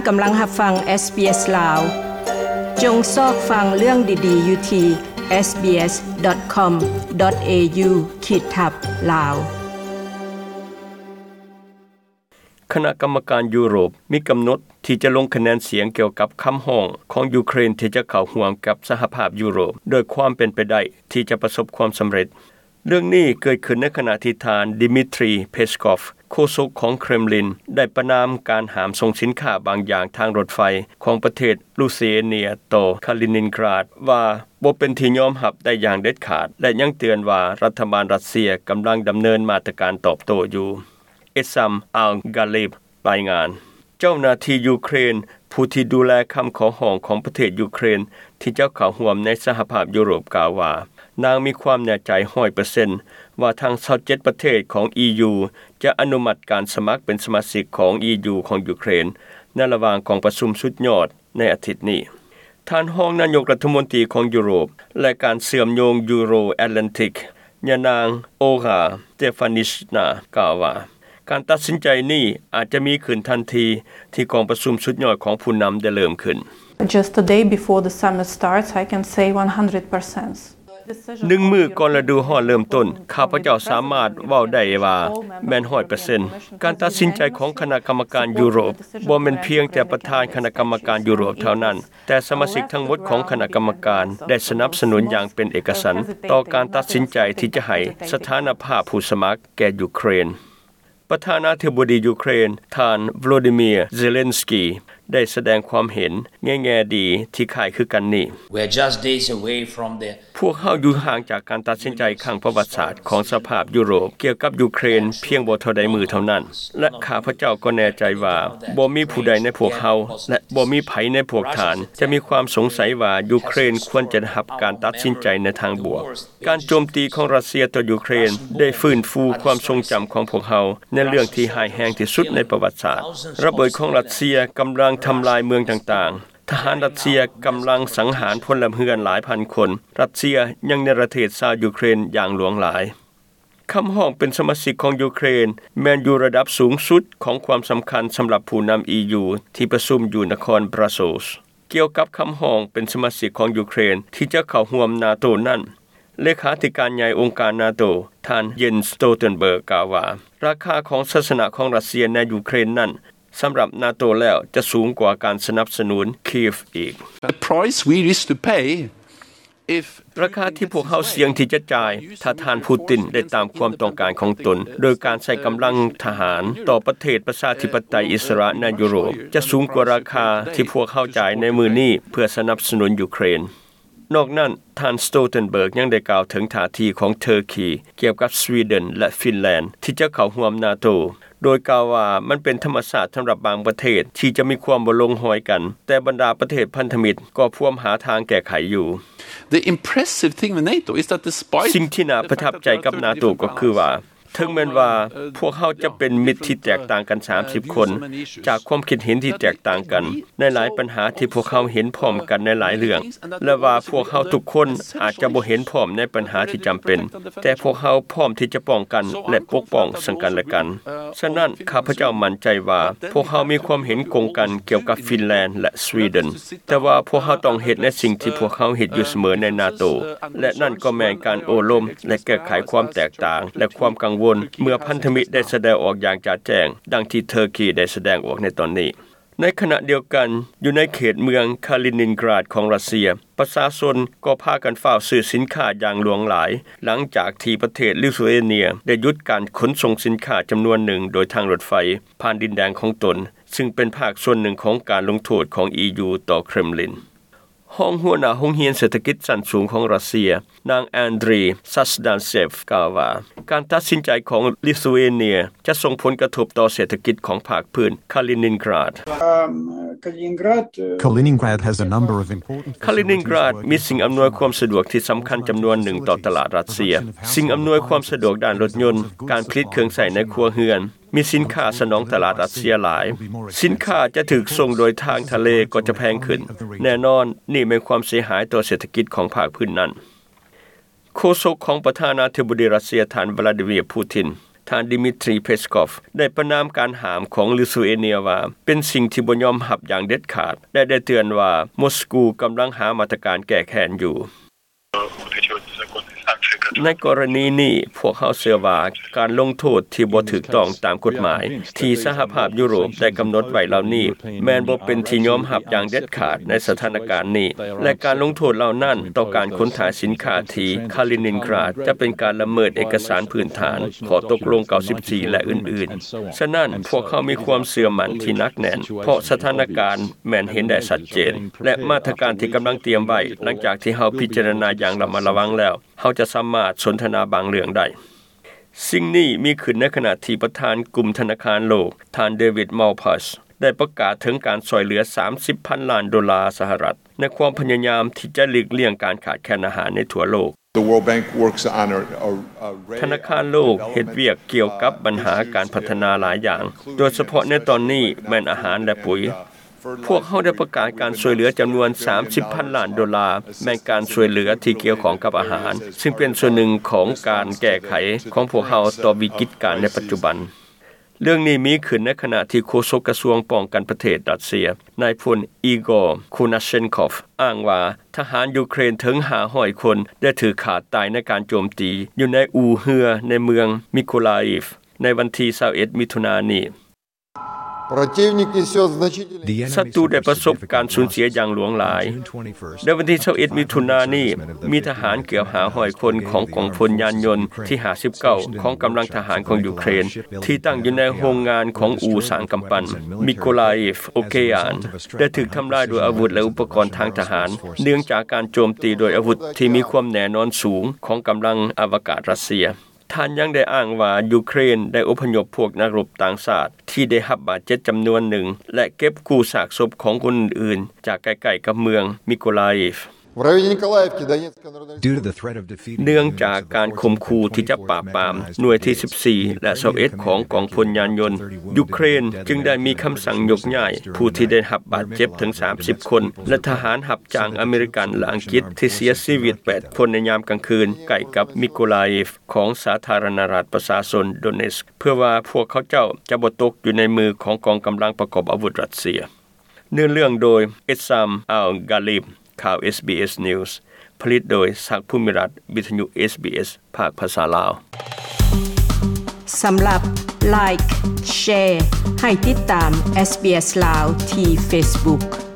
ກຳລັງຮັບຟັງ SBS ລາວ. ຈົ່ງຊອກຟັງເລື່ອງດີໆຢູ່ທີ່ SBS.com.au ຂີດທັບ ລາວ. ຄະນະກຳມະການຢູໂຣບມີກຳນົດທີ່ຈະລົງຄະແນນສຽງກ່ຽວກັບຄຳຮ້ອງຂອງຢູເຄຣນທີ່ຈະເຂົ້າຮ່ວມກັບສະຫະພາບຢູໂຣບ ໂດຍຄວາມເປັນໄປໄດ້ທີ່ຈະປະສົບຄວາມສຳເລັດ. ເລື່ອງນີ້ເກີດຂຶ້ນໃນຂະນະທີ່ທ່ານ Dmitry Peskov ໂຄສົກຂອງເຄຣມລິນ ໄດ້ປະນາມການຫ້າມສົ່ງສິນຄ້າບາງຢ່າງທາງລົດໄຟຂອງປະເທດລູເທເນຍຕໍ່ຄາລິນິນກຣາດ ວ່າບໍ່ເປັນທີ່ຍອມຮັບໄດ້ຢ່າງເດັດຂາດ ແລະ ຍັງເຕືອນວ່າລັດຖະບານຣັດເຊຍກຳລັງດຳເນີນມາດຕະການຕອບໂຕ້ຢູ່. ເອຊາມ ອາລ ກາເລບ ລາຍງານ. ເຈົ້າໜ້າທີ່ຢູເຄຣນ ຜູ້ທີ່ດູແລຄຳຂໍຮ້ອງຂອງປະເທດຢູເຄຣນ ທີ່ຈະເຂົ້າຮ່ວມໃນສະຫະພາບຢູໂຣບ ກ່າວວ່າ ນາງມີຄວາມແນ່ໃຈຮ້ອຍເປີເຊັນວ່າທັງຊາວເຈັດປະເທດຂອງ EU ຈະອະນຸມັດການສະໝັກເປັນສະມາຊິກຂອງ EU ຂອງຢູເຄຣນ ໃນລະຫວ່າງກອງປະຊຸມສຸດຍອດໃນອາທິດນີ້. ທ່ານຮອງນາຍົກລັດຖະມົນຕີຂອງຢູໂຣບ ແລະ ການເຊື່ອມໂຍງຢູໂຣແອດແລນຕິກ ຍານາງ ໂອຣາ ສະເຕຟານິຊນາ ກ່າວວ່າ ການຕັດສິນໃຈນີ້ອາດຈະມີຂຶ້ນທັນທີທີ່ກອງປະຊຸມສຸດຍອດຂອງຜູ້ນຳໄດ້ເລີ່ມຂຶ້ນ. Just a day before the summit starts, I can say one hundred percent. ໜຶ່ງມື້ກ່ອນລະດູຮ້ອນເລີ່ມຕົ້ນ, ຂ້າພະເຈົ້າສາມາດເວົ້າໄດ້ວ່າແມ່ນຮ້ອຍເປີເຊັນ. ການຕັດສິນໃຈຂອງຄະນະກຳມະການຢູໂຣບ ບໍ່ແມ່ນພຽງແຕ່ປະທານຄະນະກຳມະການຢູໂຣບເທົ່ານັ້ນ, ແຕ່ສະມາຊິກທັງໝົດຂອງຄະນະກຳມະການໄດ້ສະໜັບສະໜູນຢ່າງເປັນເອກະສັນຕໍ່ການຕັດສິນໃຈທີ່ຈະໃຫ້ສະຖານະພາບຜູ້ສະໝັກແກ່ຢູເຄຣນ. ປະທານາທິບໍດີຢູເຄຣນ ທ່ານ ໂວໂລດີເມຍ ເຊເລັນສກີ ໄດ້ສະແດງຄວາມເຫັນໃນແງ່ດີທີ່ຄ້າຍຄືກັນນີ້. We're just days away from the ພວກເຮົາຢູ່ຫ່າງຈາກການຕັດສິນໃຈຄັ້ງປະຫວັດສາດຂອງສະພາບຢູໂຣບກ່ຽວກັບຢູເຄຣນພຽງບໍ່ເທົ່າໃດມື້ເທົ່ານັ້ນ ແລະ ຂ້າພະເຈົ້າກໍແນ່ໃຈວ່າບໍ່ມີຜູ້ໃດໃນພວກເຮົາ ແລະ ບໍ່ມີໃຜໃນພວກທ່ານຈະມີຄວາມສົງໄສວ່າຢູເຄຣນຄວນຈະໄດ້ຮັບການຕັດສິນໃຈໃນທາງບວກ. ການໂຈມຕີຂອງຣັດເຊຍຕໍ່ຢູເຄຣນໄດ້ຟື້ນຟູຄວາມຊົງຈຳຂອງພວກເຮົາໃນເລື່ອງທີ່ຮ້າຍແຮງທີ່ສຸດໃນປະຫວັດສາດ. ລະເບີດຂອງຣັດເຊຍກຳລັງທຳລາຍເມືອງຕ່າງໆ. ທະຫານຣັດເຊຍກຳລັງສັງຫານພົນລະເຮືອນຫຼາຍພັນຄົນ. ຣັດເຊຍຍັງເນລະເທດຊາວຢູເຄຣນຢ່າງຫຼວງຫຼາຍ. ຄຳຮ້ອງເປັນສະມາຊິກຂອງຢູເຄຣນແມ່ນຢູ່ລະດັບສູງສຸດຂອງຄວາມສຳຄັນສຳລັບຜູ້ນຳ EU ທີ່ປະຊຸມຢູ່ນະຄອນບຣັສເຊລ. ກ່ຽວກັບຄຳຮ້ອງເປັນສະມາຊິກຂອງຢູເຄຣນທີ່ຈະເຂົ້າຮ່ວມນາໂຕນັ້ນ, ເລຂາທິການໃຫຍ່ອົງການນາໂຕ ທ່ານ Jens Stoltenberg ກ່າວວ່າ ລາຄາຂອງໄຊຊະນະຂອງຣັດເຊຍໃນຢູເຄຣນນັ້ນ ສຳລັບນາໂຕແລ້ວຈະສູງກວ່າການສະໜັບສະໜູນຄີເອຟອີກ. The price we used to pay if ລາຄາທີ່ພວກເຮົາສ່ຽງທີ່ຈະຈ່າຍ ຖ້າທ່ານປູຕິນໄດ້ຕາມຄວາມຕ້ອງການຂອງຕົນ ໂດຍການໃຊ້ກຳລັງທະຫານຕໍ່ປະເທດປະຊາທິປະໄຕອິດສະຫຼະໃນຢູໂຣບ ຈະສູງກວ່າລາຄາທີ່ພວກເຮົາຈ່າຍໃນມື້ນີ້ເພື່ອສະໜັບສະໜູນຢູເຄຣນ. ນອກນັ້ນ, ທ່ານ Stoltenberg ຍັງໄດ້ກ່າວເຖິງທ່າທີຂອງເທີຄີ ກ່ຽວກັບສະວີເດັນ ແລະ ຟິນແລນ ທີ່ຈະເຂົ້າຮ່ວມນາໂຕ ໂດຍກ່າວວ່າມັນເປັນທຳມະຊາດສຳລັບບາງປະເທດທີ່ຈະມີຄວາມບໍ່ລົງຮອຍກັນ, ແຕ່ບັນດາປະເທດພັນທະມິດກໍພວມຫາທາງແກ້ໄຂຢູ່. The impressive thing with NATO is that despite ສິ່ງທີ່ໜ້າປະທັບໃຈກັບນາໂຕກໍຄືວ່າ ເຖິງແມ່ນວ່າພວກເຮົາຈະເປັນມິດທີ່ແຕກຕ່າງກັນສາມສິບຄົນ ຈາກຄວາມຄິດເຫັນທີ່ແຕກຕ່າງກັນໃນຫຼາຍບັນຫາທີ່ພວກເຮົາເຫັນພ້ອມກັນໃນຫຼາຍເລື່ອງ ແລະ ວ່າພວກເຮົາທຸກຄົນອາດຈະບໍ່ເຫັນພ້ອມໃນບັນຫາທີ່ຈຳເປັນ, ແຕ່ພວກເຮົາພ້ອມທີ່ຈະປ້ອງກັນ ແລະ ປົກປ້ອງເຊິ່ງກັນແລະກັນ. ສະນັ້ນ, ຂ້າພະເຈົ້າໝັ້ນໃຈວ່າພວກເຮົາມີຄວາມເຫັນກົງກັນກ່ຽວກັບຟິນແລນ ແລະ ສະວີເດັນ, ແຕ່ວ່າພວກເຮົາຕ້ອງເຮັດໃນສິ່ງທີ່ພວກເຮົາເຮັດຢູ່ສະເໝີໃນນາໂຕ ແລະ ນັ້ນກໍແມ່ນການໂອ້ລົມ ແລະ ແກ້ໄຂຄວາມແຕກຕ່າງ ແລະ ຄວາມກັງວົນ ເມື່ອພັນທະມິດໄດ້ສະແດງອອກຢ່າງຈະແຈ້ງ ດັ່ງທີ່ເທີຄີໄດ້ສະແດງອອກໃນຕອນນີ້. ໃນຂະນະດຽວກັນ, ຢູ່ໃນເຂດເມືອງຄາລິນິນກຣາດຂອງຣັດເຊຍ, ປະຊາຊົນກໍພາກັນຟ້າວຊື້ສິນຄ້າຢ່າງຫຼວງຫຼາຍ ຫຼັງຈາກທີ່ປະເທດລິໂທເອເນຍໄດ້ຢຸດການຂົນສົ່ງສິນຄ້າຈຳນວນໜຶ່ງໂດຍທາງລົດໄຟຜ່ານດິນແດນຂອງຕົນ, ຊຶ່ງເປັນພາກສ່ວນໜຶ່ງຂອງການລົງໂທດຂອງ EU ຕໍ່ເຄຣມລິນ. ຮອງຫົວໜ້າໂຮງຮຽນເສດຖະກິດຊັ້ນສູງຂອງຣັດເຊຍ, ນາງ Andriy Sazdansev ກ່າວວ່າ ການຕັດສິນໃຈຂອງລິໂທເອເນຍຈະສົ່ງຜົນກະທົບຕໍ່ເສດຖະກິດຂອງພາກພື້ນຄາລິນິນກຣາດ. Um, Kaliningrad, uh, Kaliningrad has a number of important ຄາລິນິນກຣາດມີສິ່ງອຳນວຍຄວາມສະດວກທີ່ສຳຄັນຈຳນວນໜຶ່ງຕໍ່ຕະຫຼາດຣັດເຊຍ. ສິ່ງອຳນວຍຄວາມສະດວກດ້ານລົດຍົນ, ການຜະລິດເຄື່ອງໃຊ້ໃນຄົວເຮືອນ, ມີສິນຄ້າສະໜອງຕະຫຼາດຣັດເຊຍຫຼາຍ. ສິນຄ້າຈະຖືກສົ່ງໂດຍທາງທະເລກໍຈະແພງຂຶ້ນ. ແນ່ນອນ, ນີ້ແມ່ນຄວາມເສຍຫາຍຕໍ່ເສດຖະກິດຂອງພາກພື້ນນັ້ນ. ໂຄສົກຂອງປະທານາທິບໍດີຣັດເຊຍ ທ່ານ ວລາດີເມຍ ປູຕິນ ທ່ານ Dmitry Peskov ໄດ້ປະນາມການຫ້າມຂອງລິທຸເອເນຍວ່າ ເປັນສິ່ງທີ່ບໍ່ຍອມຮັບຢ່າງເດັດຂາດ ແລະ ໄດ້ເຕືອນວ່າ ມົສກູກຳລັງຫາມາດຕະການແກ້ແຄ້ນຢູ່. ໃນກໍລະນີນີ້ ພວກເຮົາເຊື່ອວ່າ ການລົງໂທດທີ່ບໍ່ຖືກຕ້ອງຕາມກົດໝາຍ ທີ່ສະຫະພາບຢູໂຣບໄດ້ກຳນົດໄວ້ເຫຼົ່ານີ້ ແມ່ນບໍ່ເປັນທີ່ຍອມຮັບຢ່າງເດັດຂາດໃນສະຖານະການນີ້ ແລະ ການລົງໂທດເຫຼົ່ານັ້ນຕໍ່ການຂົນຖ່າຍສິນຄ້າທີ່ Kaliningrad ຈະເປັນການລະເມີດເອກະສານພື້ນຖານ ຂໍ້ຕົກລົງ ເກົ້າສິບສີ່ ແລະ ອື່ນໆ. ສະນັ້ນ, ພວກເຮົາມີຄວາມເຊື່ອໝັ້ນທີ່ໜັກແໜ້ນ ເພາະສະຖານະການແມ່ນເຫັນໄດ້ຊັດເຈນ ແລະ ມາດຕະການທີ່ກຳລັງຕຽມໄວ້ ຫຼັງຈາກທີ່ເຮົາພິຈາລະນາຢ່າງລະມັດລະວັງແລ້ວ, ເຮົາຈະສາມາດສົນທະນາບາງເລື່ອງໄດ້. ສິ່ງນີ້ມີຂຶ້ນໃນຂະນະທີ່ປະທານກຸ່ມທະນາຄານໂລກ, ທ່ານ David Malpass ໄດ້ປະກາດເຖິງການຊ່ວຍເຫຼືອ ສາມສິບພັນລ້ານໂດລາສະຫະລັດ ໃນຄວາມພະຍາຍາມທີ່ຈະຫຼີກລ່ຽງການຂາດແຄນອາຫານໃນທົ່ວໂລກ. The World Bank works on a, a, a array ທະນາຄານໂລກເຮັດວຽກກ່ຽວກັບບັນຫາການພັດທະນາຫຼາຍຢ່າງ, ໂດຍສະເພາະໃນຕອນນີ້ແມ່ນອາຫານ ແລະ ປຸ໋ຍ. ພວກເຮົາໄດ້ປະກາດການຊ່ວຍເຫຼືອຈຳນວນ ສາມສິບພັນລ້ານໂດລາ, ແມ່ນການຊ່ວຍເຫຼືອທີ່ກ່ຽວຂ້ອງກັບອາຫານ, ຊຶ່ງເປັນສ່ວນໜຶ່ງຂອງການແກ້ໄຂຂອງພວກເຮົາຕໍ່ວິກິດການໃນປັດຈຸບັນ. ເລື່ອງນີ້ມີຂຶ້ນໃນຂະນະທີ່ໂຄສົກກະຊວງປ້ອງກັນປະເທດຣັດເຊຍ, ນາຍພົນ ອີກອ ຄູນາເຊັນຄອຟ ອ້າງວ່າ ທະຫານຢູເຄຣນເຖິງ ຫ້າຮ້ອຍຄົນ ໄດ້ຖືກຂ້າຕາຍໃນການໂຈມຕີຢູ່ໃນອູ່ເຮືອໃນເມືອງມິໂກລາອີຟ ໃນວັນທີ ຊາວເອັດ ມິຖຸນານີ້. Противник несёт значительные ສັດຕູໄດ້ປະສົບການສູນເສຍຢ່າງຫຼວງຫຼາຍ. ໃນວັນທີ ຊາວເອັດ ມິຖຸນານີ້, ມີທະຫານເກືອບ ຫ້າຮ້ອຍຄົນຂອງກອງພົນຍານຍົນທີ ຫ້າສິບເກົ້າ ຂອງກຳລັງທະຫານຂອງຢູເຄຣນ ທີ່ຕັ້ງຢູ່ໃນໂຮງງານຂອງອູ່ສ້າງກຳປັ່ນ ມິໂກລາອີຟ ໂອເກອານ ໄດ້ຖືກທຳລາຍໂດຍອາວຸດ ແລະ ອຸປະກອນທາງທະຫານ ເນື່ອງຈາກການໂຈມຕີໂດຍອາວຸດທີ່ມີຄວາມແນ່ນອນສູງຂອງກຳລັງອະວະກາດຣັດເຊຍ. ທ່ານຍັງໄດ້ອ້າງວ່າ ຢູເຄຣນໄດ້ອົບພະຍົບພວກນັກລົບຕ່າງຊາດທີ່ໄດ້ຮັບບາດເຈັບຈຳນວນໜຶ່ງ ແລະ ເກັບກູ້ຊາກສົບຂອງຄົນອື່ນໆ ຈາກໃກ້ໆກັບເມືອງມິໂກລາອີຟ. В районе Николаевки Донецкой Народной Республики ເນື່ອງຈາກການຂົ່ມຂູ່ທີ່ຈະປາບປາມໜ່ວຍທີ ສິບສີ່ ແລະ ຊາວເອັດ ຂອງກອງພົນຍານຍົນ, ຢູເຄຣນຈຶ່ງໄດ້ມີຄຳສັ່ງຍົກຍ້າຍຜູ້ທີ່ໄດ້ຮັບບາດເຈັບເຖິງ ສາມສິບ ຄົນ ແລະ ທະຫານຮັບຈ້າງອາເມລິກັນ ແລະ ອັງກິດທີ່ເສຍຊີວິດ ແປດ ຄົນໃນຍາມກາງຄືນ ໃກ້ກັບມິໂກລາອີຟ ຂອງສາທາລະນະລັດປະຊາຊົນໂດເນສ ເພື່ອວ່າພວກເຂົາເຈົ້າຈະບໍ່ຕົກຢູ່ໃນມືຂອງກອງກຳລັງປະກອບອາວຸດຣັດເຊຍ. ເນື້ອເລື່ອງໂດຍ ອິດຊາມ ອັລ ກາລີບ. ຂ່າວ ເອສບີເອສ News ຜະລິດໂດຍ ສັກ ພູມິລັດ, ວິທະຍຸ ເອສບີເອສ ພາກພາສາລາວ. ສຳລັບ Like, Share ໃຫ້ຕິດຕາມ ເອສບີເອສ ລາວ ທີ່ Facebook.